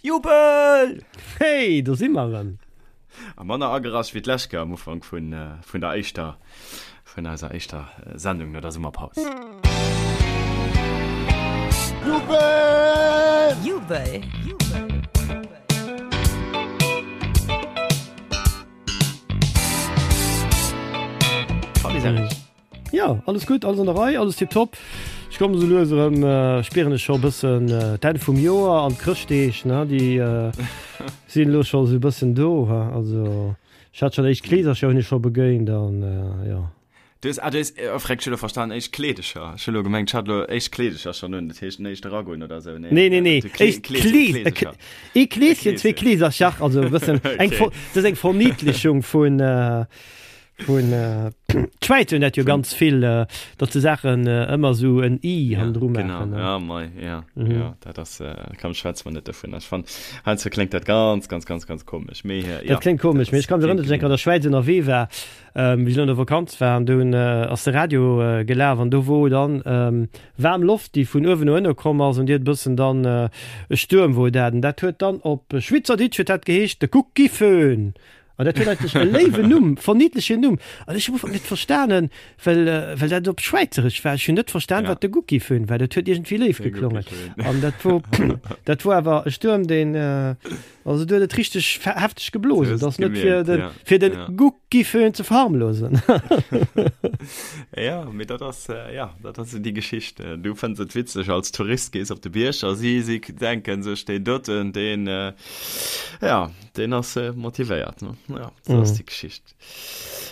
Jubel! Hey, do si mer erëm! A manner agerasch wéi d'lescht Kéier am Ufank vun vun der éischter vun eiser éischter Sendung no der Summerpaus. Jubel! Jubel! Salut Serge! Jo, alles gutt, alles an der Rei, alles tiptop. Ech kommen esou lues erëm, spieren ech scho e bëssen d'Enn vum Joer an d'Chrëschtdeeg, ne, déi sinn elo scho esou e bëssen do. Also ech hat schonn éischt Kleesercher hunn ech scho begéint an jo. Du hues, ah du hues, oh freck, ech hu lo verstanen éischt Kleedecher. Ech hu lo gemengt, ech hat lo éischt Kleedecher schonn un, dat heescht den éischte Ragoen oder esou. Nee, nee, nee, éischt Kleesercher. Ee Kleeschen, zwee Kleesercher, also e bëssen eng, dat ass eng Verniedlechung vun. Vun d'Schwäiz hunn dat jo ganz vill, datt se Saachen ëmmer esou en i hannendru maachen. Genau, ja, mei, ja, ja, dat ass, komm, schwätze mer net dovun. Ech fannen, heiansdo kléngt dat ganz, ganz, ganz, ganz komesch, mee ja. Dat kléngt komesch, mee ech ka mech erënneren, datt ech eng Kéier an der Schwäiz ënnerwee war, wéi ech an der Vakanz war, an do hunn, ass de Radio gelaf an do wor dann waarm Loft, déi vun uewen no ënne komm ass an déi huet e bëssen dann, e Stuerm wor dat, an dat huet dann op Schwyzerditsch huet dat geheescht, de Guckiföhn. An dat huet eigentlech e léiwen Numm, verniedlechen Numm. An ech hu am Ufank net verstanen, well, well dat op Schwäizeresch war. Ech hunn net verstan, wat de Guckiföhn war. Dat huet iergendwéi léif geklongen. An dat wor, dat wor awer e Stuerm, deen, also do huet et richteg hefteg geblosen. Dat ass net fir den, fir den Guckiföhn ze verharmlosen. Ja, mee dat ass, ja, dat ass esou déi Geschicht. Du fënns et witzeg als Tourist, gees op de Bierg a si, si denken sech, deen doten, deen, ja, Deen ass motivéiert, ne? Ja, sou ass déi Geschicht.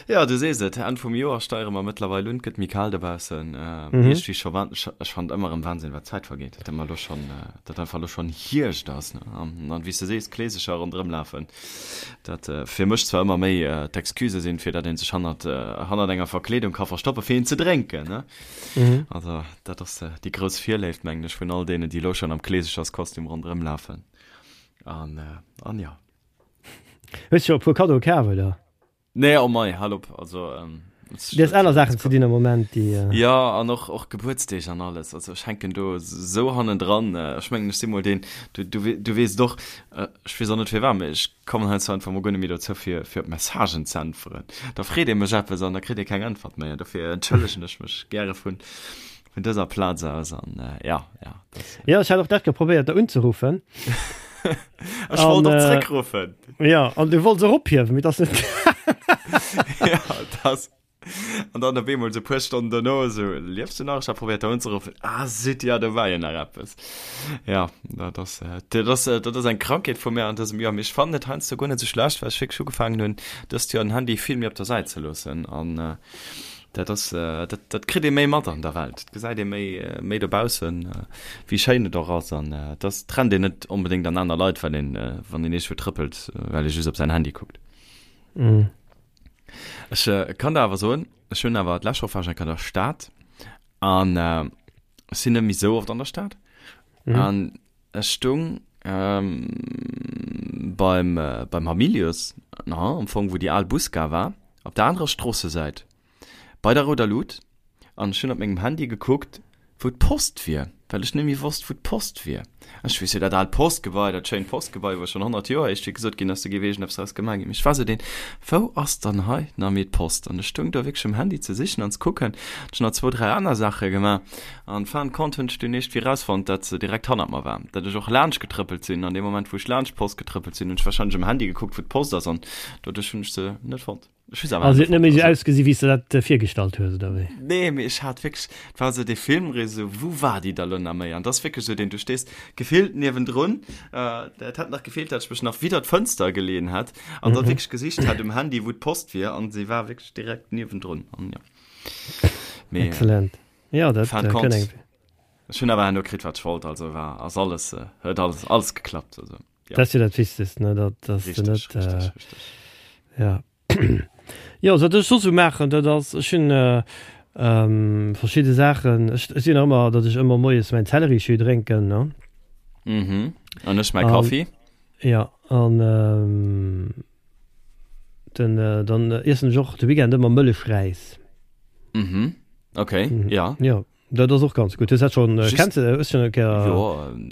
Ja, du sees et, Enn vum Joer steiere mer mëttlerweil un, et gëtt méi kal dobaussen. Iergendwéi scho wan-, ech fannen et ëmmer erëm Wahnsinn, wat d'Zäit vergeet, datt ëmmer elo schonn, datt einfach elo schonn Hierscht ass, ne? An an wéi s de sees, Kleesecher ronderëm lafen, dat fir mech zwar ëmmer méi d'Excuse sinn, fir datt ee sech hannert, hannert enger Verkleedung ka verstoppen, fir een ze drénken, ne? Also dat ass déi grouss Virléift, mengen ech, vun all deenen, déi elo schonn am Kleesecherskostüm ronderëm lafen. An, äh, an ja. Hues scho e puer Kaddoe kaf, oder? Nee, oh mei, hal op, also, ähm, Du hues aner Saachen ze dinn am Moment, déi. Äh ja, an och, och Gebuertsdeeg an alles. Also ech hänken do esou hannendran. Ech mengen, ech si mol deen, du, du, du weess et och, ech weess och net firwat, mee ech kommen heiansdo einfach mol guer net méi dozou, fir, fir op Messagen ze äntweren. Da freet ee mech eppes an da kritt ee keng Äntwert méi. An dofir entschëllegen ech mech gäre vun, Vun dëser Plaz aus an ja, ja. Das, ja, ech hat och dat geprobéiert der unzeruffen. Ech wollt och zréckruffen. Ja, an du wollts och ophiewen, mee dat ass net. Ja, das. An dann op eemol sou puer Stonnen dono sou, liefs du nach? Ech hat probéiert der unzeruffen. Ah, zut, ja, do war jo nach eppes. Ja, dat ass, dat ass, dat ass eng Krankheet vu mir an dësem Joer. Mee ech fannen et heiansdo guer net sou schlecht, well ech wierklech ugefaangen hunn, dëst Joer den Handy vill méi op der Säit ze loossen. An Dat ass, dat, dat kritt ee méi mat an der Welt. Et gesäit ee méi, méi dobaussen, wéi schéin et och ass. An et ass, et rennt een net onbedéngt an aner Leit, well een, wann een iergendwou trëppelt, well ee just op säin Handy kuckt. Ech kann der awer soen, ech hunn awer, d'lescht Woch war ech eng Kéier an der Stad an ech sinn net méi esou oft an der Stad. An Ech stung beim beim Hamilius, na am Fong wou déi al Busgare war, op der anerer Stroossesäit, bei der rouder Lut, an ech hunn op mengem Handy gekuckt, wou d'Post wier, well ech net méi wosst, wou d'Post wier. Ech weess jo, dat aalt Postgebai, dat schéint Postgebai, wou schonn 100 Joer éischt wéi gesot ginn ass, do géif iergendeppes draus gemaach ginn. Mee ech war sou deen, Wou ass dann hei nach méi d'Post? An ech stung do wierklech um Handy ze sichen an ze kucken. Ech hunn nach zwou, dräi aner Saache gemaach. An fin de compte hunn ech dunn iergendwéi rausfonnt, dat se direkt hannert mer war. Dat ech och laanscht getrëppelt sinn. An deem Moment, wou ech laanscht d'Post getrëppelt sinn, hunn ech wahrscheinlech um Handy gekuckt, wou d'Post ass. An doduerch hunn ech se net fonnt. Ech hu se awer Also huet net méi sou ausgesi wéi s de dat virgestallt hues, oder wéi? Nee, mee ech hat wierklech, et war esou dee Filmriss, esou, wou war déi da lo nach méi? An et ass wierklech esou deen, du stees gefillt niewendrun, et hätt nach gefeelt, dat ech mech nach widder d'Fënster geleeën hätt an da wierklech gesicht hätt um Handy, wou d'Post wier. An se war wierklech direkt niewendrun. An jo. Mee. Excellent. Ja, dat Fin de compte, kënn eng. Ech hunn awer herno kritt, wat ech wollt, also war, ass alles, huet alles, alles geklappt, also ja. Dat ass jo dat Wichtegst, ne, dat, dass de net, Richtig, richtig, richtig. Ja. Jo, wat ech soss esou maachen, dat ass, ech hunn verschidde Saachen, ech, ech sinn nach ëmmer, datt ech ëmmer moies mäin Zellerijus drénken, ne. Mhm, an ech mäi Kaffi. Ja, an den, dann iessen ech och de Weekend ëmmer Mëllechräis. Mhm, okay, ja. Jo. Dat ass och ganz gutt. Hues dat schonn, Just, kenns de, hues schonn eng Kéier. Jo,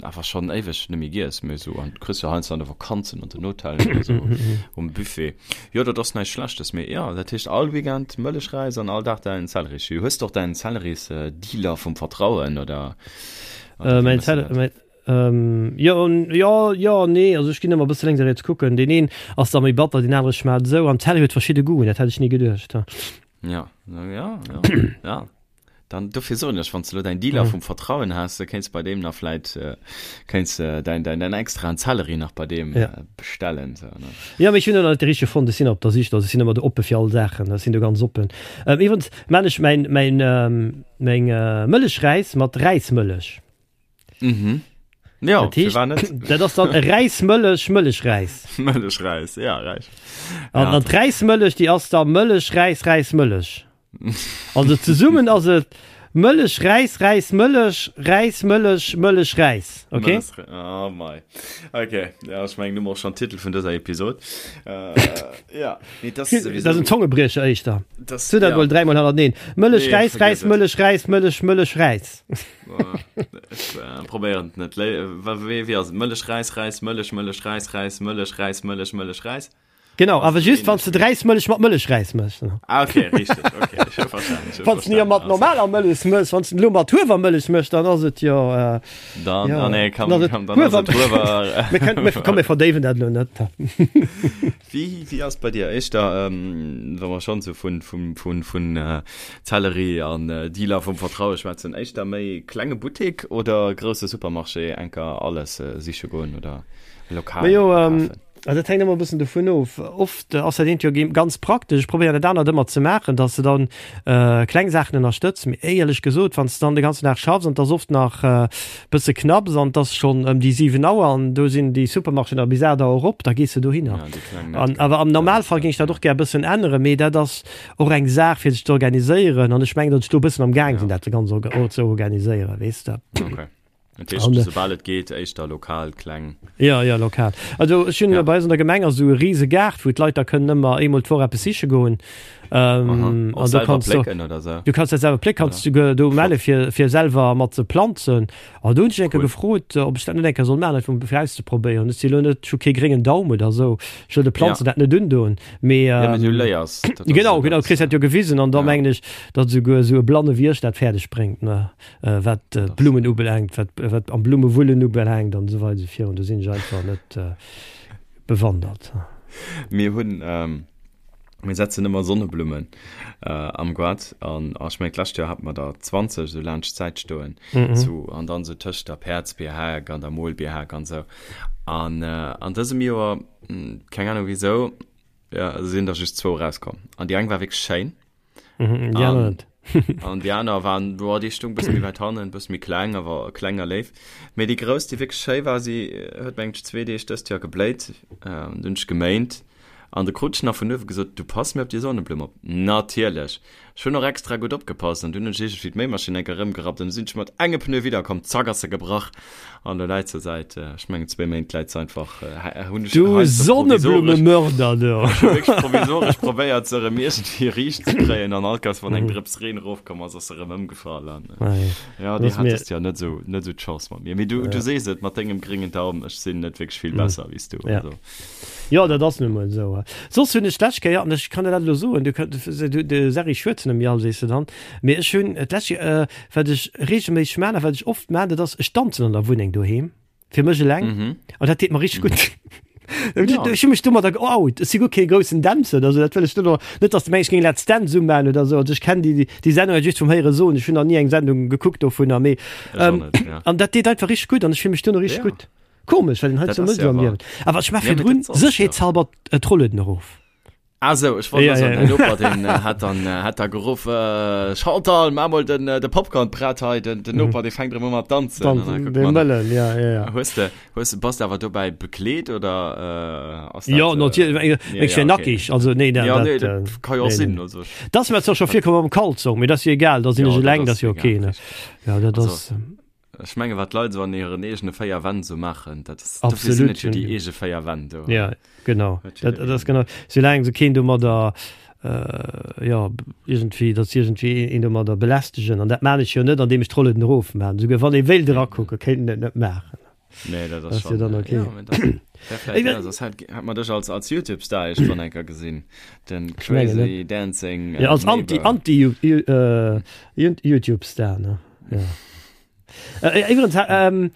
awer schonn éiweg net méi giess, mee esou an kriss jo heiansdo an de Vakanzen an den Hotellen oder esou um Buffet. Jo, dat ass näischt Schlechtes, mee jo, dat heescht all Weekend Mëllechräis an all Dag däin Zellerisjus. Hues de och däin Zellerisdealer vum Vertrauen oder, oder wéi Mäin méchs de Zell, dat? mäin, jo, jo, jo, nee, also ech ginn ëmmer e bësse lénks a riets kucken. Deen een ass da méi batter, deen anere schmaacht esou an Zelleri huet verschidde Goûten, dat hätt ech ni geduecht. Ja, ja, ja, ja. Dann dofir soen ech, wann s de elo däin Dealer vum Vertrauen has, da kéints bei deem nach vläit kéints de däin däin däin extraen Zelleri nach bei deem bestellen sou ne. Jo, mee ech hunn elo nach net de richtege fonnt. Ech sinn op der Sich, also ech sinn ëmmer do oppe fir all Saachen, ech sinn do ganz oppen. Iwwregens maan ech mäin mäin meng Mëllechräis mat Räismëllech. Mhm. Ja, Dat heescht, firwat net? dat ass dann e Räismëllech Mëllechräis. Mëllechräis, ja, räich. An Ja. an d'Räismëllech, déi ass da Mëllech, Räis, Räis, Mëllech. Also zesummen ass et Mëllech, Räis, Räis, Mëllech, Räis, Mëllech, Mëllech, Räis. Okay? Mëllech, oh mei. Okay, ja, ech mengen, du mer och schon Titel vun dëser Episod. Äh, ja, nee, das Dat ass en Zongebriecher éischter. Das, So dat ja. mol dräimol hannerteneen. Mëllech, Nee, Räis, vergiss Räis, et. Mëllech, Räis, Mëllech, Mëllech, Räis. Ech äh, probéieren et net. Lé- wa- Wéi wéi ass et? Mëllech, Räis, Räis, Mëllech, Mëllech, Räis, Räis, Mëllech, Räis, Mëllech, Mëllech, Räis. Genau, awer just wann s de d'Räismëllech mat Mëllechräis méchs. Ah, okay, richteg, okay, ech hu verstanen, ech hu Wann s de jo verstanen. mat Also, normaler Mëllech méchs, wann s de elo mat Huewermëllech méchs, dann ass et jo, äh, dann, jo, ah, nee, komm, dann ass et komm, dann ass Huewer. et Huewer. Mir kënnen, mir, komm, mir verdéiwen dat elo net. Wéi, wéi ass et bei dir éischter, ähm, wa mer schonn esou vun, vun, vun, vun äh, Zellerie an äh, Dealer vum Vertraue schwätzen, éischter méi klenge Buttek oder grousse Supermarché enker alles äh, siche goen oder lokal Majo, ähm, kafen? Also dat hänkt ëmmer e bëssen dovun of. Oft ass dat eent jo ganz praktesch. Ech probéieren dat anert ëmmer ze maachen, dass de dann kleng Saachen ënnerstëtz. Mee éierlech gesot, wann s de dann de ganzen Dag schaffs an et ass oft nach e bësse knapps an et ass schonn ëm déi 7 Auer an do sinn déi Supermarchéen nach bis 8 Auer op, da gees de dohinner. An awer am Normalfall géing ech dat och gär e bëssen änneren, mee dat ass och eng Saach fir sech ze organiséieren an ech mengen, datt ech do e bëssen am Gaang sinn, dat ganz ze organiséieren, weess de. Dat heescht, An, soubal et geet, éischter lokal, kleng. Ja, ja, lokal. Also ech hunn Ja. bei eis an der Gemeng ass esou e rise Gaart, wou d'Leit da kënnen ëmmer eemol d'Woch eppes siche goen. Aha. Ähm, Och an do selwer kanns du, plécken oder sou? du kanns dat selwer plécken, Oder? kanns du do Flott. melle fir, fir selwer mat ze planzen. An do hunn ech eng Kéier Cool. gefrot, ob ech dat net eng Kéier soll maachen, einfach um fir auszeprobéieren. Ech si lo net, ech hu kee gréngen Daum oder esou, ech wëll de Ja. Planzen dat net undoen. Mee, Ja, mee du ähm, léiers. Dat ass genau, jo genau, dat, kriss dat jo gewisen an da ja. mengen ech, datt esouguer esou e blanne wéi ech dat fäerdeg bréngt, ne. Wat d'Blummen ubelaangt, wat, wat am Blummewullen ubelaangt an esou weider esou virun, do sinn ech einfach net bewandert. Mir hunn, mir setzen ëmmer Sonneblummen am Goart an ech mengen d'lescht Joer hate mer der 20 esou laanscht d'Säit stoen, sou an dann esou tëscht der Päerdsbierhak an der Molbierhak an esou. An an dësem Joer, keng Ahnung wisou, sinn der just zwou erauskomm an déi eng war wierklech schéin. Mhm, déi aner net. An déi aner waren, boah, déi stung bësse méi wäit hannen, bësse méi kleng, awer kleng a léif. Mee déi grouss, déi wierklech schéi war, si huet mengt ech zwee Deeg dëst Joer gebléit. Dunn hunn ech geméint an de krut ech nach vun uewe gesot, du pass mir op déi Sonneblumm op. Natierlech! Ech hunn och extra gutt opgepasst an dunn hunn ech iergendwéi d'Méimaschinn enk erëmgerappt an du sinn ech mat engem Pneu widderkomm, zack ass se gebrach. An elo läit se säit, ech mengen zwéi Méint läit se einfach, hunn ech Du heiansdo provisoresch, Sonneblumemörder, du! ech hu wierklech provisoresch probéiert se erëm iergendwéi riicht ze kréien an all Kéiers wann eng Drëps Reen erofkomm ass, ass se erëm ëmgefall an jo, déi hat dëst Joer net esou, net esou d'Chance mat mir. Mee du, du sees et mat dengem gréngen Daum, ech sinn net wierklech vill besser wéi s du, also. Jo, dat ass nu mol esou. Soss hunn ech d'lescht Kéier, an ech kann der dat elo soen, du kënnt, du, de Serri schwätzen ëm all, sees de dann, mee ech hunn d'lescht Kéier, Wat ech regelméisseg maan a wat ech oft maan, dat ass, ech danzen an der Wunneng doheem, fir mech eleng, an dat deet mer richteg gutt. Ech hu mech domadder geout. Ech si guer kee groussen Dänzer oder sou, dat wëll ech net, net dass de mengs, ech géing Let's Dance umaan oder sou. Also ech kenn déi, déi Sendung halt just vum Héiere soen, ech hunn nach ni eng Sendung gekuckt dovunner, mee an dat deet einfach richteg gutt an ech fill mech duerno richteg gutt. Komesch, well een hei sou mécht am Liewen. Awer ech maach virdrun sécherheetshalber d'Rollueden erof. Ah sou, ech wollt ja, ja, ja. Noper, den äh, hat dann äh, hat da geruff äh, Chantal, mach mal den, äh, de Popcorn prett hei, den, den Noper, mhm. den fängt immer mat tanzen. Tanzen, den Mëllen, ja, ja, ja. Hues de, hues de, bass de awer dobäi bekleet oder äh, ass dat, Ja, natierlech, äh, ja, ja, okay. nackig, also nee, dat, ja, nee, dat, dat kann jo och nee, sinn, nee. also. Das mir zwar schon virkomm am Kalzong, mee das jo egal, da sinn ech eleng, das jo okay, ne. Ja, dat ass. Ech menge wat d'Leit esou an hiren eegene 4 Wänn esou maachen, dat ass, dofir sinn et jo déi eege 4 Wänn do. Ja, genau. Dat, dat ass genau. Soulaang se keen domadder. Jo, iergendwéi, datt se iergendwéi een domadder belästegen. An dat maan ech jo net, andeem ech d'Rollen erofmaan. Esouguer wann ee wéilt erakucken, kéint en et net maachen. Nee, dat ass schon, dann okay. Ja, dat, dat ja, das hat, hat man dech als, als YouTube-Star irgendwann enker gesinn. Den Crazy Dancing. Äh, ja, als Anti, Anti äh, YouTube-Star, ne? Ja. Äh, übrigens, ähm,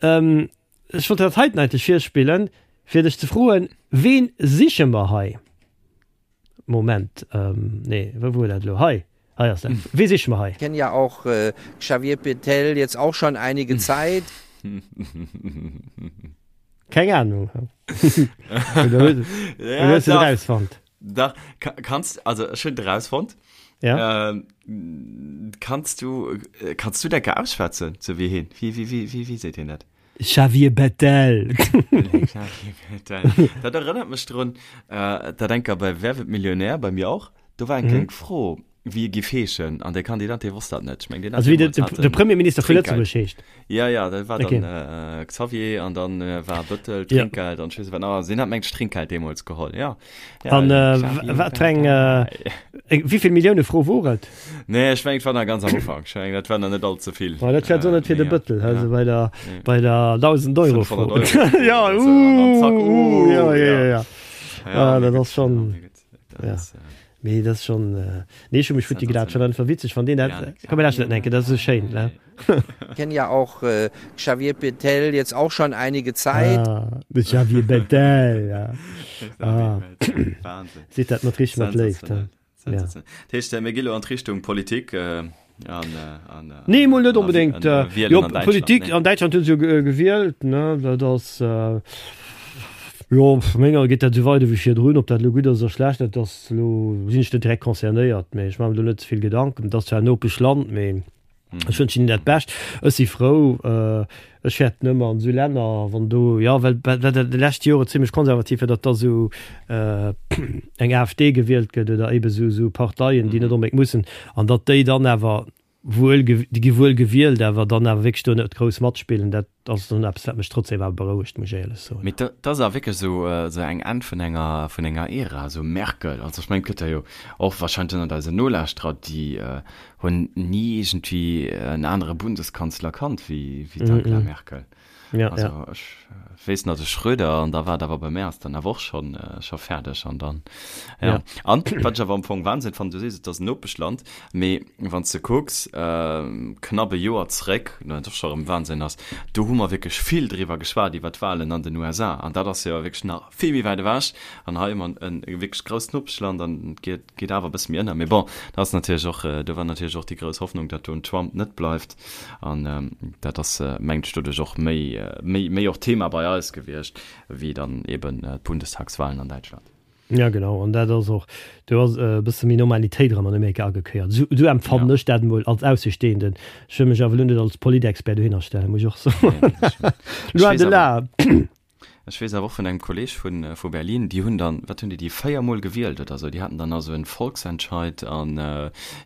ähm, ech wollt dat heiten eigentlich virspillen, fir dech ze froen, wen siche mer hei? Moment, ähm, nee, wou wor dat elo? Hei, hei ass dat. Wee siche mer hei? Kenne ja auch Xavier Bettel jetzt auch schon einige Zeit. Keng Ahnung. Oder hues du et erausfonnt? Dach, kanns, also ech hunn et erausfonnt. Ja. Ähm, kanns du, kanns du dat ausschwätzen, sou wéi hien? Wéi, wéi, wéi, wéi seet hien dat? Xavier Bettel. Xavier Bettel. Dat erënnert mech drun, äh, dat enker bei Wer wird Millionär, bei mir och, do war eng kleng Fro, wéi e giff heeschen, an de Kandidat, dee wosst dat net. Ech meng, deen hat Also wéi de, deemools hat de en Premierminister vu Trinkgeld. Lëtzebuerg heescht. Ja, ja, dat war Okay. dann äh, Xavier an dann äh, war Bëttel, Ja. Trinkgeld an ech weess net wat nach. Also deen hat meng ech Trinkgeld deemools geholl, ja. ja An äh, Xavier wat fir eng, äh, Bettel. wéi vill Millioune Fro wor et? Nee, ech mengen, et war nach ganz am Ufank. Ech mengen, dat war nach net all ze vill. Oh, dat wär net fir de Bëttel, also bei der, bei der 1000 Euro Fro. 500 Euro. Ja, uh, uh, zack, uh, ja, ja, ja, ja. Ja, Ah, dat mee ass schon, gutt, dat ja. ass, äh, Mee dat ass schon, äh, nee, ech hu mech futti gelaacht, schon einfach witzeg, wann deen dat, Ja, komm, mir lauschteren dat enke, dat ass esou schéin, ne? Kenn ja auch äh, Xavier Bettel jetzt auch schon einige Zeit. Ah, de Xavier Bettel, ja. Ah. Wahnsinn. Seet dat mat richteg mat Léift, Sensationell. Ja. Dat heescht, mir gi lo an d'Richtung Politik an, an, Nee, mol net onbedéngt. An, an, Jo, an Däitschland, Politik nee. an Däitschland hunn se jo gewielt, ne? Dat ass, jo, menger geet dat esou weider wéi virdrun. Ob dat elo gutt ass oder schlecht, dat ass elo, sinn ech net direkt concernéiert, mee ech maache mer do net ze vill Gedanken. Et ass zwar en Nopeschland, mee. Ech wënschen hinnen dat Bescht. Ech si frou. Ech fäerten ëmmer an esou Länner, wann do, jo, well well dat déi lescht Jore zimlech konservativ war, datt da esou eng AfD gewielt gëtt oder ebe esou esou Parteien, déi net onbedéngt mussen, an datt déi dann awer wuel, déi gi wuel gewielt, awer dann awer wierklech do net grouss matspillen. Dat ass dann eppes, wat mech trotzdem awer berouegt, muss ech éierlech soen. Mee dat ass awer wierklech esou esou eng Enn vun enger vun enger Ära, esou Merkel. Also ech mengen, et gëtt der jo och wahrscheinlech ënnert eisen Nolauschterer, déi Hunn ni iergendwéi en anere Bundeskanzler kannt wéi d'Angela Merkel. Ja, also ja. ech weess nach de Schröder an da war et awer bei mär ass dann awer och schonn scho fäerdeg an dann ja. Ja. An wat ech awer am Fong Wahnsinn fannen, du sees et ass en Nopeschland, mee wann s de kucks knapp e Joer zréck, wat och scho erëm Wahnsinn ass, do hu mer wierklech vill driwwer geschwat iwwer d'Wahlen an den USA an dat ass jo wierklech nach vill méi wäit ewech an hei hu mer en wierklech grousst Nopeschland an et geet Geet awer e bësse méi ënner. Mee bon, dat ass natierlech och, do war natierlech och déi grouss Hoffnung, datt do en Trump net bleift. An dat ass, mengt ech, doduerch och méi, méi, méi och Thema bei eis gewiescht, wéi dann eben d'Bundestagswahlen an Däitschland. Ja, genau. An dat ass och, do ass e bësse méi Normalitéit erëm an Amerika agekéiert. Esou, esou empfannen ech dat emol als Aussestehenden. Ech wëll mech awer elo net als Politexpert dohinner stellen, muss ech och soen. Loin de là. Ech weess awer och vun engem Kolleg vun vu Berlin, déi hunn dann, wat hunn déi, déi 4 mol gewielt oder sou, déi haten dann also en Volksentscheid an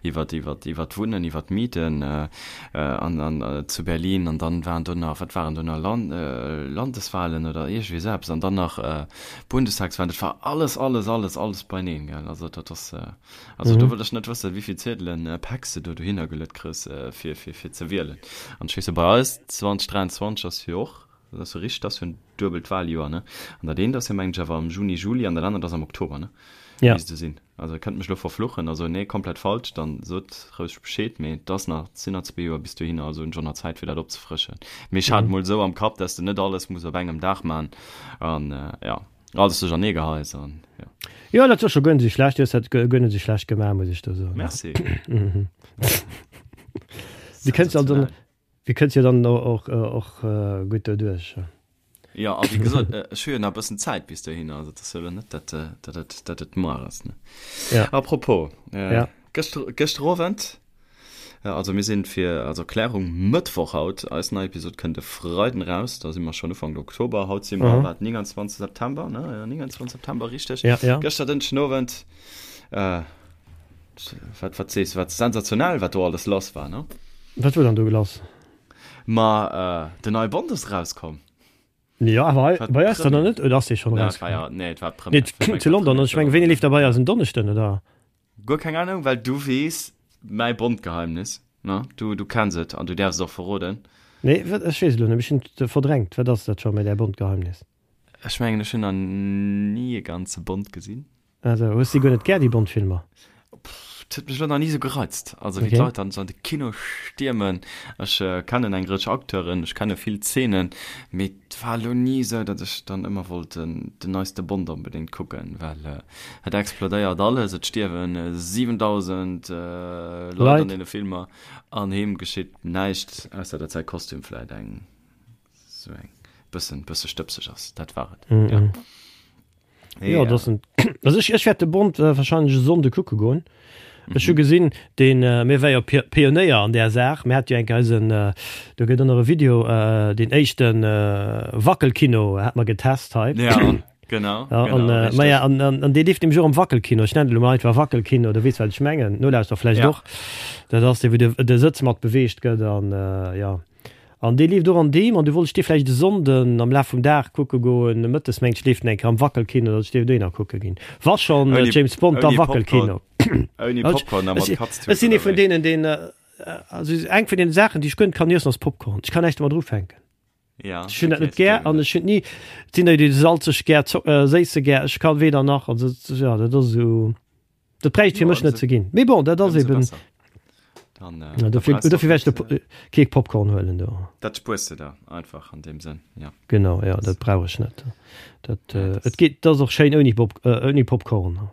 iwwert iwwert iwwert d'Wunnen, iwwert d'Mieten an an zu Berlin an dann waren do nach, wat waren do nach, Land Landeswahlen oder iergendwéi esou eppes an dann nach Bundestagswahlen, dat war alles, alles, alles, alles beineen, gell, also dat ass, also do wëll ech net wëssen, wéivill Ziedelen, Päck s de do dohinner geluet kriss fir fir fir ze wielen. An ech weess jo bei eis 2023 ass jo och Dat ass jo richteg, dat ass jo en duebelt Wahljoer, ne? An dat eent ass jo, mengen ech, awer am Juni, Juli an dat anert ass am Oktober, ne? Ja. Misst et sinn. Also e kënnt mech elo verfluchen, also nee, komplett falsch, dann sot roueg Bescheed, mee et ass nach, et sinn nach zwee Joer bis dohinner, also hunn ech och nach Zäit fir dat opzefrëschen. Mee ech hat et mol esou am Kapp, dass de net alles muss op engem Dag man an ja, alles duerchernee geheis an ja. Jo, dat ass scho guer net esou schlecht, du hues dat guer net esou schlecht gemaach, muss ech do soen. Merci. Du kënns also, Dir kënnt jo dann och och gutt doduerch. Jo, a wéi gesot, ech hu jo nach e bëssen Zäit bis dohinner, also et ass jo elo net, datt datt et datt et muer ass, ne? Ja. Apropos, Ja. gëschter gëschter Owend, also mir sinn fir als Erklärung Mëttwoch haut, eis nei Episod kënnt e Freiden eraus, da si mer schonn Ufank Oktober, haut si mer, Mhm. wat, 29 September, ne? Jo, 29 September, richteg. Ja, ja. Gëschter Dënschden Owend, Wat, wat sees du, wat sensationell, wat do alles lass war, ne? Wat wor dann do lass? Ma, den neie Bond ass erauskomm. Jo, awer hei bei eis dann nach net, oder ass dee schonn erauskomm? Nee, et war d'Première. Nee, zu London, ech mengen, wéini leeft der bei eis? En Donneschden, oder? Guer keng Ahnung, well du weess mäi Bond-Geheimnis, ne? Du, du kenns et an du däerfs et och verroden. Nee, wat, ech weess et elo net, ech hunn et verdrängt. Wat ass dat scho méi, däi Bond-Geheimnis? Ech mengen, ech hunn nach ni e ganze Bond gesinn. Also, hues de guer net gär déi Bond-Filmer? Pff, et huet mech elo nach ni esou gereizt. Also wéi d'Leit dann esou an de Kino stiermen. Ech kennen eng Rëtsch Acteuren, ech kenne vill Zeenen, mee et war elo ni esou, datt ech dann ëmmer wollt den neiste Bond onbedéngt kucken, well et explodéiert alles, et stierwen 7.000 Leit an deene Filmer an him geschitt näischt, ausser datt säi Kostüm vläit eng esou eng bëssen bësse stëbseg ass. Dat war et, jo. Ja, das sind, also ich, ich werde de Bond äh, wahrscheinlich e Sonnde kucke goen. Ech hu gesinn, den äh, mir war jo Pi Pionéier an där Saach. Mir hat jo eng eisen äh, do gëtt ënner e Video äh, den éischten äh, Wackelkino hat mer getest hei. Ja, genau. Ja, genau, an, äh, richtig. ma ja, an, an, an dee leeft nämlech och am Wackelkino. Ech nennen et elo mol einfach Wackelkino, du weess wat ech mengen. Nolauschterer vläicht Ja. och. Dat ass dee wou de, de Sëtz mat beweegt gëtt an äh, ja. An dee leeft och an deem, an du wollt ech dee vläicht e Sonnden am Laf vum Dag kucke goen, mëttes mengt ech leeft en eng Kéier am Wackelkino, datt ech dee dohinner kucke ginn. Wa schonn James Bond, da Wackelkino. Ouni Popcorn a mat Katztut, Ech sinn ee vun deenen, deen, also eng vun deene Saachen, déi ech guer net kann iessen, ass Popcorn. Ech kann näischt domat ufänken. Ech hunn dat net gär an ech hunn ni, et sinn der, déi salzeg gär, séisse gär, ech kann weder nach, also jo, dat ass esou. Dat bräicht fir mech net ze ginn. Mee bon, dat ass eben. Dann, äh, ja, dofir, dofir wär ech äh, kee Popcorn huelen do. Dat spuers de der einfach an deem Sënn, ja. Genau, ja, dat brauch ech net. Dat, äh, et geet, dat ass och schéin ouni Pop, äh, ouni Popcorn.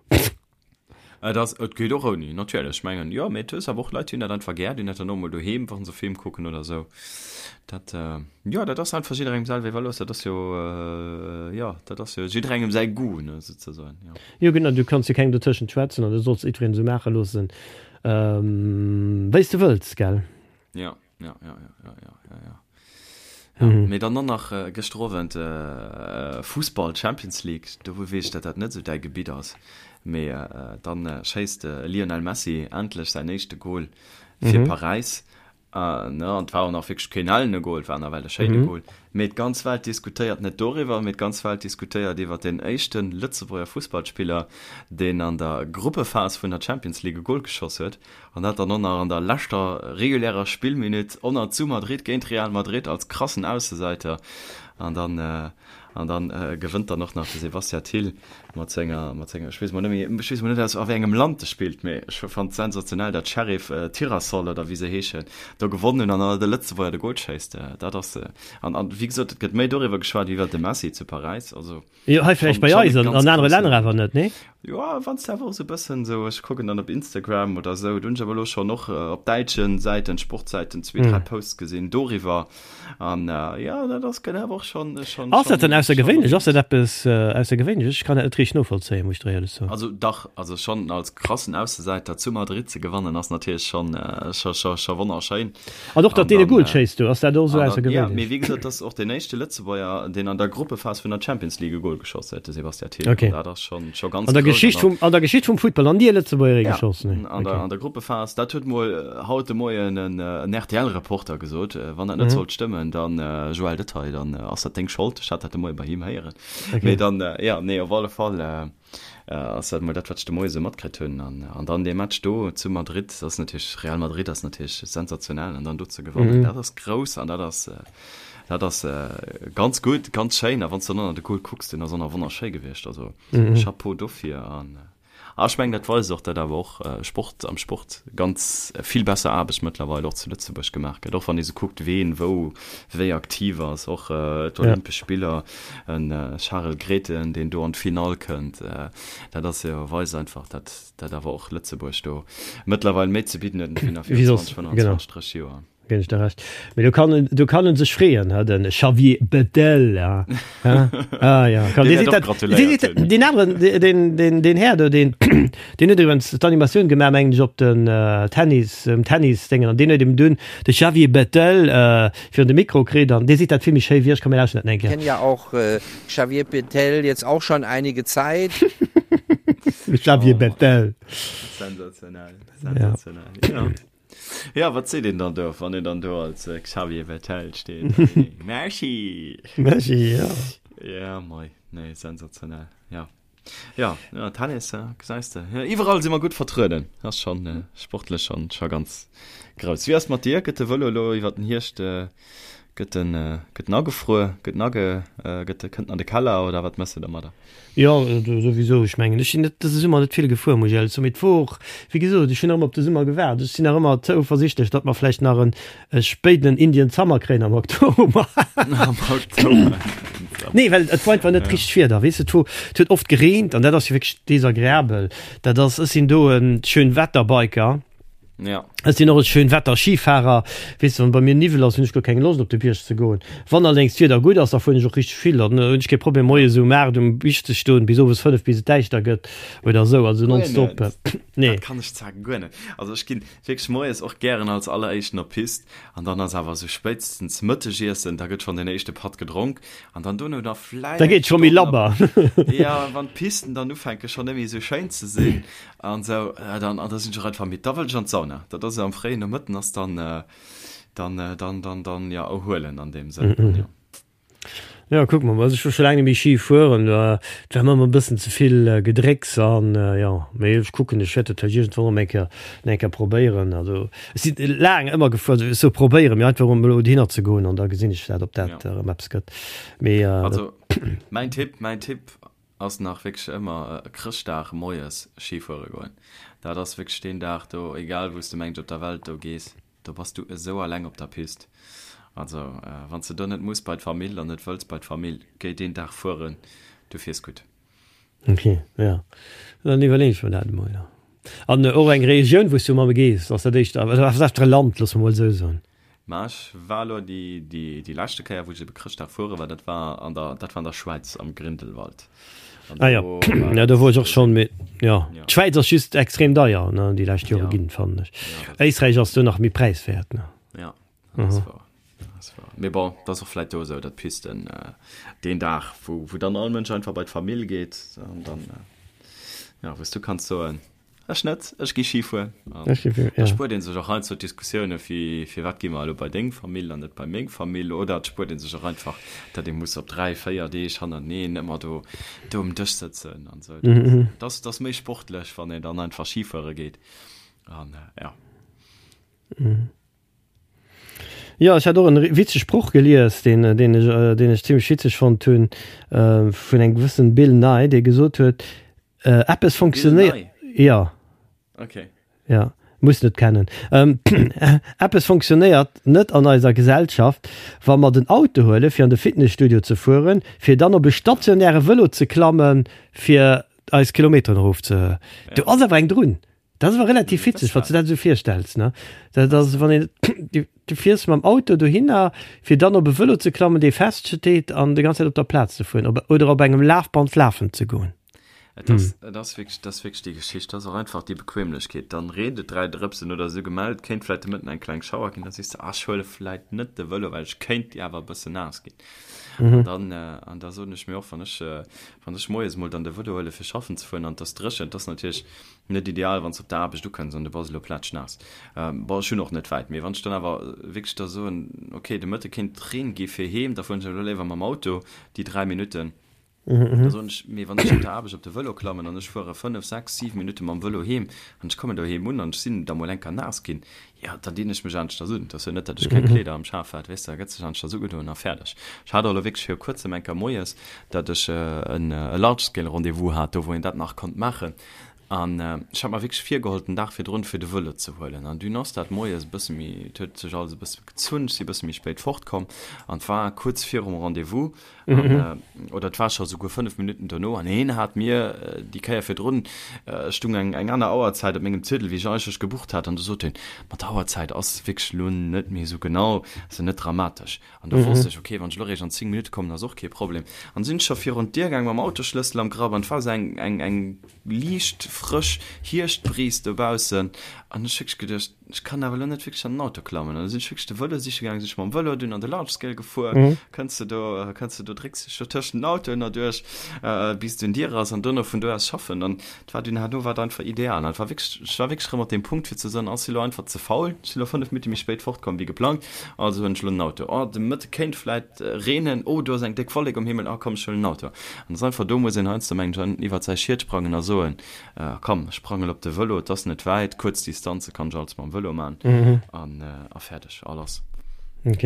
Et ass, et geet och ouni, natierlech. Ech mengen, jo, mee et hues awer och Leit, déi hunn dat einfach gär, déi hunn dat dann och mol doheem, wa se Film kucken oder esou. Dat, jo, dat ass einfach jidderengem selwer iwwerlooss. Dat ass jo, jo, dat ass jo jidderengem säi Goût, ne, souzesoen, jo. Jo, genau, du kanns jo kengem dotëschent schwätzen an du solls jiddwereen esou maache loossen, wéi s de wëlls, gell? Jo, jo, jo, jo, jo, jo, jo, jo. Ja, mee dann och nach gëschter Owend Fussball, Champions League, do weess ech, datt dat net esou däi Gebitt ass, mee dann schéisst de Lionel Messi endlech säin éischte Gol fir Paräis An et war och nach wierklech keen ellene Gol, et war nawell e schéine Gol. Mee d'ganz Welt diskutéiert net doriwwer, mee d'ganz Welt diskutéiert iwwer deen éischte Lëtzebuerger Fussballspiller, deen an der Gruppephas vun der Champions League e Gol geschoss huet. An dat dann och nach an der leschter regulärer Spillminutt, och zu Madrid géint Real Madrid als krassen Aussesäiter. An dann An dann gewënnt dann och nach de Sebastien Thill mat senger, mat senger, ech weess mol net méi, ech weess mol net aus a wéi engem Land e spillt, mee ech fannt sensationell, dat Sheriff Tirassol oder wéi se heeschen, do gewonnen hunn an dann de Lëtzebuerger de Gol schéisst. Dat ass, an, an wéi gesot, et gëtt méi doriwwer geschwat wéi iwwer de Messi zu Paräis. Also Jo, hei vläicht bei eis, an an anere Länner awer net, nee? Jo, wann s de awer och esou e bëssen esou, ech kucken dann op Instagram oder esou, do hunn ech awer elo schonn och op däitschen Säiten, Sportsäiten zwee, dräi Posts gesinn doriwwer. An jo, dat ass gëtt awer och schonn, schonn, Ass dat dann aussergewéinlech? Ass dat eppes aussergewéinlech? Ech kann dat net richteg novollzéien, muss ech der éierlech soen. Also dach, also schonn als krassen Aussesäiter zu Madrid ze gewannen ass natierlech schonn, scho, scho, scho wonnerschéin. An och datt deen e Goal schéisst do, ass dat och esou aussergewéinlech? Jo, mee wéi gesot, dat ass och deen éischte Lëtzebuerger, deen an der Gruppephas vun der Champions League e Goal geschoss huet, de Sebastian Thill. Okay. An dat ass schonn, scho ganz An der grouss. Geschicht vum, an der Geschicht vum Futtball, nach ni e Lëtzebuerger ee geschoss, nee. An der, an der Gruppephas, dat huet mol haut de Moien en, en RTL-Reporter gesot. Wann dat net sollt stëmmen, dann, Joël Detail, dann ass dat deng Schold. Ech hat dat de Moie bei him héieren. Mee dann, jo, nee, op alle Fall ass dat mol dat, wat ech de Moie sou matkritt hunn. An, an dann dee Match do zu Madrid, dat ass natierlech, Real Madrid ass natierlech sensationell. An dann do ze gewannen, dat ass grouss an dat ass, dat ass ganz gutt, ganz schéin. A wann s de dann och nach de Goal kucks, deen ass och nach wonnerschéi gewiescht. Also Chapeau dofir. An A ech mengen, dat weist och, datt awer och Sport am Sport ganz vill besser Aarbecht mëttlerweil och zu Lëtzebuerg gemaach gëtt, och wann ee sou kuckt, ween wou wéi aktiv ass, och d'Olympesch Spiller, e Charel Grethen, deen do an d'Finall kënnt, dat ass jo, weist einfach, datt dat awer och Lëtzebuerg do mëttlerweil méi ze bidden huet wéi nach virun 20, 25, 30 Joer. Ginn ech der Recht. Mee do kann en, do kann en sech freeën, ha, den Xavier Bettel, ja. Ha? Ah, ja. Kann, Deen dee wäert seet och dat, dee gratuléiert seet dat, hunn. deen aneren, deen, deen, deen, deen Här do, deen, deen huet iwwregens d'Animatioun gemaach, mengen ech, op den Tennis, um Tennis-Déngen, an deen huet eben dunn de Xavier Bettel virun de Mikro kritt, an dee seet dat vill méi schéi wéi ech. Komm, mir lauschten dat eng Kéier. Kenn ja auch Xavier Bettel jetzt auch schon einige Zeit. Xavier Bettel. Sensationell, sensationell, ja. Ja, wat seet een dann do, wann een dann do als äh, Xavier Bettel steet? Merci! Merci, ja. Ja, mei, nee, sensationell, ja. Ja, ja Tennis, ja, gesäis de. Ja, iwwerall si mer gutt vertrueden. Ass schon äh, sportlech schon, schon ganz grouss. Wéi ass mat dir? Gëtt de Vëlo elo iwwer den Hierscht äh, gëtt en, äh, gëtt en agefruer? Gëtt en age, äh, gëtt, kënnt en an de Keller oder wat mëss de domadder? Jo, souwisou. Ech mengen, ech sinn net dëse Summer net vill gefuer, muss ech éierlech soen. Mee et wor och, wéi gesot, ech hunn nach ëmmer op de Summer gewaart. Ech sinn nach ëmmer zouversichtlech, datt mer vläicht nach en spéidenen Indian Summer kréien am Oktober. Am Oktober. Nee, well et war einfach net richteg Wieder, weess de. Et wor, et huet oft gereent an dat ass jo wierklech desagreabel. Dat ass, ech sinn do e Schönwetterbiker. Ja. Ech sinn och e Schönwetter-Skifahrer. Weess de, wann bei mir Niwwel ass, hunn ech guer keng Loscht op de Bierg ze goen. Wann allerdéngs d'Wieder gutt ass, da fueren ech och richteg vill. Dann hunn ech kee Problem moies um 8 um Bierg ze stoen, bis owes 5, bis et däischter gëtt oder esou. Also Guer nonstop. net. Nee. Dat kann ech zwar guer net. Also ech ginn wierklech moies och gären als alleréischten op d'Pist an dann ass awer esou spéitstens Mëttegiessen, da gëtt schonn den éischte Patt gedronk an dann dono nach vläicht Da geet scho méi labber. Ja, wann d'Pisten dann ufänke schonn net méi esou schéin ze sinn. An sou, dann, an da sinn ech och einfach midd. Da wëll ech an d'Sauna. Dat ass am fréien Nomëtten ass dann, dann, dann, dann, dann, ja, erhuelen an deem Sënn, mhm. ja. Ja, kuck mol, also ech war scho laang net méi Ski fueren, et war mer ëmmer e bëssen ze vill Gedrécks an jo, mee ech kucken, ech wäert dat vläicht iergendwann erëm eng Kéier, eng Kéier probéieren. Also ech sinn laang ëmmer gefuer, also ech soe probéieren, mee einfach erëm elo dohinner ze goen an da gesinn ech dat, ob dat Ja. erëm eppes gëtt. Mee Also mäin Tipp, mäin Tipp Ass nach wierklech ëmmer Chrëschtdag moies Ski fuere goen. Dat ass wierklech deen Dag do, egal wou s de mengt op der Welt do gees, do bass du esou alleng op der Pist. Also wann s de do net muss bei d'Famill an net wëlls bei d'Famill, géi deen Dag fueren, du fiers gutt. Ok, jo, dann iwwerleeën ech mer dat emol, jo. An och eng Regioun wou s du ëmmer gees, ass dat éischter, oder wat fir e Land, loosse mer mol esou soen? Mä ech war elo déi, déi, déi leschte Kéier, wou ech ebe Chrëschtdag fuere war, dat war an der, dat war an der Schwäiz am Grindelwald. An ah, ja. ja, do wor ech och schonn, mee ja. ja. D'Schwäiz ass just extrem deier, ne, déi lescht Jore ja. ginn, fannen ech. Ja, Éisträich ass do nach méi präiswäert, ne. Ja, dat ass mhm. wahr. Dat ass wahr. Mee bon, dat ass och vläit do esou, datt d'Pisten äh, deen Dag, wou, wou dann all Mënsch einfach bei d'Famill geet, an dann, äh, ja, wou s du kanns soen, Ech net, ech gi Ski fueren. Da spuert een sech och heiansdo d'Diskussioune fir firwat gi mer elo bei deng Famill an net bei meng Famill. Oder et spuert ee sech och einfach, datt ee muss op 3, 4 Deeg hannerteneen ëmmer do do um Dësch sëtzen an esou. Dat ass, dat ass méi sportlech, wann een dann einfach Ski fuere geet. An ja. Jo, ech hat och en witzege Sproch gelies, deen, deen ech, deen ech zimmlech witzeg fonnt hunn, vun engem gewëssen Bill Nye, dee gesot huet, Eppes funktionéiert. Ja. Okay. Ja, muss net kennen. Ähm, eppes funktionéiert net an eiser Gesellschaft, wa mer den Auto huele fir an de Fitnesstudio ze fueren, fir dann op e stationäre Vëlo ze klammen, fir eis Kilometeren erof ze. Do ass awer eng drun. Dat ass awer relativ witzeg, wann s du dat esou virstells, ne? Dat ass, wann een, du, du fiers mam Auto dohinner, fir dann op e Vëlo ze klammen, dee feststeet an déi ganz Zäit op der Plaz ze fueren, op, oder op engem Lafband lafen ze goen. Et ass, et ass wierklech, dat ass wierklech déi Geschicht. Dat ass och einfach déi Bequemlechkeet. Dann reent et 3 Drëpsen oder esou gemellt, kéint vläicht de Mëtten eng kleng Schauer ginn, da sees de, ah, ech huele vläicht net de Vëlo, well ech kéint awer e bëssen naass ginn. An dann, an da soen ech mir och, wann ech, wann ech moies mol dann de Vëlo huele fir schaffen ze fueren an et ass dréchen, et ass natierlech Net ideal, wann s de op der Aarbecht ukënns an du bass elo plätschnaass. Bon, ech hunn och net wäit, mee wann ech dann awer wierklech da soen, ok, de Mëtte kéint Reen gi fir heem, da fueren ech elo léiwer mam Auto déi 3 Minutten. Da soen ech, mee wann ech op der Aarbecht op de Vëlo klammen an ech fuere 5, 6, 7 Minutte mam Vëlo heem an ech kommen doheem un an ech sinn da mol eng Kéier naass ginn, jo, dann dinn ech mech aneschters un. Et ass jo net, datt ech keng Kleeder am Schaf hat, weess de, da gëtt sech aneschters ugedoen a fäerdeg. Ech hat och elo wierklech viru kuerzem eng Kéier moies, datt ech en Large-Scale-Rendez-vous hat, do wou een dat nach konnt maachen. An ech hat mer wierklech virgeholl, den Dag virdrun, fir de Vëlo ze huelen. An dunn ass dat moies e bësse méi, et huet sech alles e bësse gezunn, ech si e bësse méi spéit fortkomm an et war kuerz virum Rendez-vous an, oder et war scho souguer 5 Minutten dono an hien hat mir déi Kéier virdrun, stung eng eng aner Auerzäit op mengem Ziedel, wéi ech eigentlech gebucht hat an du sot hien, ma d'Auerzäit ass wierklech elo net méi esou genau, ass jo net dramatesch. An da wosst ech, ok, wann ech elo eréischt an 10 Minutte kommen, ass och kee Problem. An sinn ech scho virun d'Dier gaang mam Autosschlëssel am Grapp an et war esou eng, eng, eng liicht. frësch Hierschtbris dobaussen an ech wierklech geduecht, ech kann awer elo net wierklech an den Auto klammen. An da sinn ech wierklech de Vëlo siche gaangen, sinn ech mam Vëlo dunn an de Large Scale gefuer, kënns de do, kënns de do, drécks dech do tëschent den Autoen erduerch, bis du un Dier ass an dono vun do aus schaffen. An et war dunn herno war et einfach ideal. An et war wierklech, ech war wierklech erëm op deem Punkt fir ze soen, ass elo einfach ze faul, ech sinn elo 5 Minutte méi spéit fortkomm wéi geplangt, also huelen ech elo den Auto. Oh, de Mëtte kéint vläit reenen, oh, do ass eng déck Wollek um Himmel, ah komm, ech huelen den Auto. An et ass einfach, do muss een heiansdo mengen ech iwwert säi Schiet sprangen a soen, Komm, ech sprangen op de Vëlo, et ass net wäit, kuerz Distanze kann ech alles mam Vëlo man an a fäerdeg, a lass. Ok.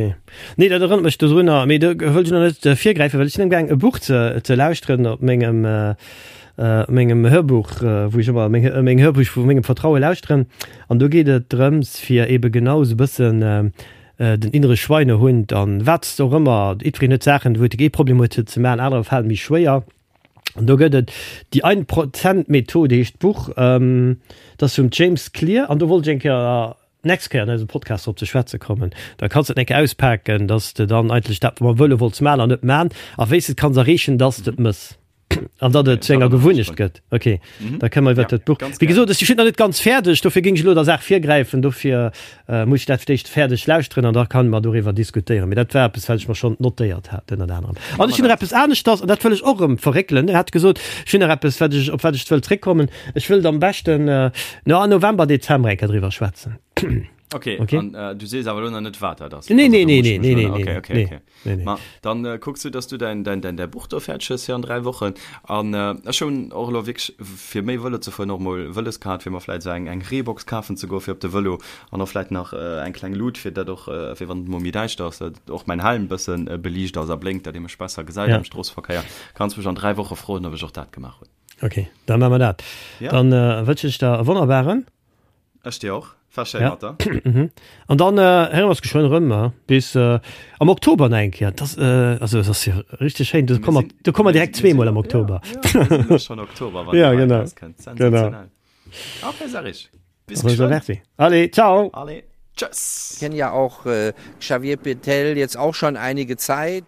Nee, dat erënnert mech dodrunner, mee do wëll ech nach net virgräifen, well ech sinn amgaang e Buch ze ze lauschteren op mengem op mengem Hörbuch, wou ech ëmmer meng meng Hörbuch vu mengem Vertraue lauschteren. An do geet et drëms fir ebe genau esou e bëssen den innere Schweinehund an wat s de och ëmmer, jiddwereen huet Saachen, wou e Problem huet se ze man, anerer falen méi schwéier. An do gëtt et déi Ein-Prozent-Methode heescht d'Buch, dat ass vum James Clear an do wollt ech eng Kéier d'nächst Kéier an eisem Podcast drop ze schwätze kommen. Da kanns de et eng Kéier auspaken, dass de dann eigentlech dat mam Vëlo wollts man an net man a wéi s de et kanns erreechen, dass de et mëss an datt et zu enger Gewunnecht gëtt. Ok, da kënne mer iwwert dat Buch. Wéi gesot, ech sinn nach net ganz fäerdeg, dofir géing ech elo der Saach virgräifen, dofir Muss ech dat fir d'éischt fäerdeg lauschteren an da kann mer doriwwer diskutéieren. Mee dat war eppes, wat ech mer schonn notéiert hat, ënnert anerem. An ech hunn nach eppes aneschters, an dat wëll ech och erëm verréckelen. Dir hat gesot, ech hunn nach eppes, wat ech, op wat ech wëll zréckkommen. Ech wëllt am beschten, no, November, Dezember eng Kéier driwwer schwätzen. Okay, okay. An, äh, du sees awer elo nach net, wat dat ass. Nee, nee, nee, nee, nee, nee, okay, okay, nee. Okay. Nee, nee. Ma, dann äh, kucks du, dass du dein, dein, dein, dein Buch do fäerdeg hues fir an 3 Wochen. An äh, ech hunn och elo wierklech fir méi Vëlo ze fueren och mol Wëlles gehat, fir mer vläit esou eng, eng Reebox kafen ze goen fir op de Vëlo an och vläit nach äh, eng kleng Lut, fir dat och, äh, fir wann et mol méi däischter ass, dat och mäin Helm bëssen äh, beliicht ass a blénkt, dat ee mech besser gesäit ja. am Stroosseverkéier. Kanns mech an 3 Woche froen, ob ech och dat gemaach hunn. Okay, dann maache mer dat. Ja. Dann äh, wënsche ech der e wonnerbaren. Ech dir och. War schéin mat der. An dann héiere mer eis geschwënn erëm, bis am Oktober nach eng Kéier. Dat ass, also et ass jo richteg schéin, do komme mer, do komme mer direkt zweemol am Oktober. Ja, mir sinn schonn Oktober, wann déi hei erauskënnt. Sensationell. Okay, Serge, bis geschwënn. Allez, ciao. Allez, tschëss. Kenn ja auch Xavier Bettel jetzt auch schon einige Zeit.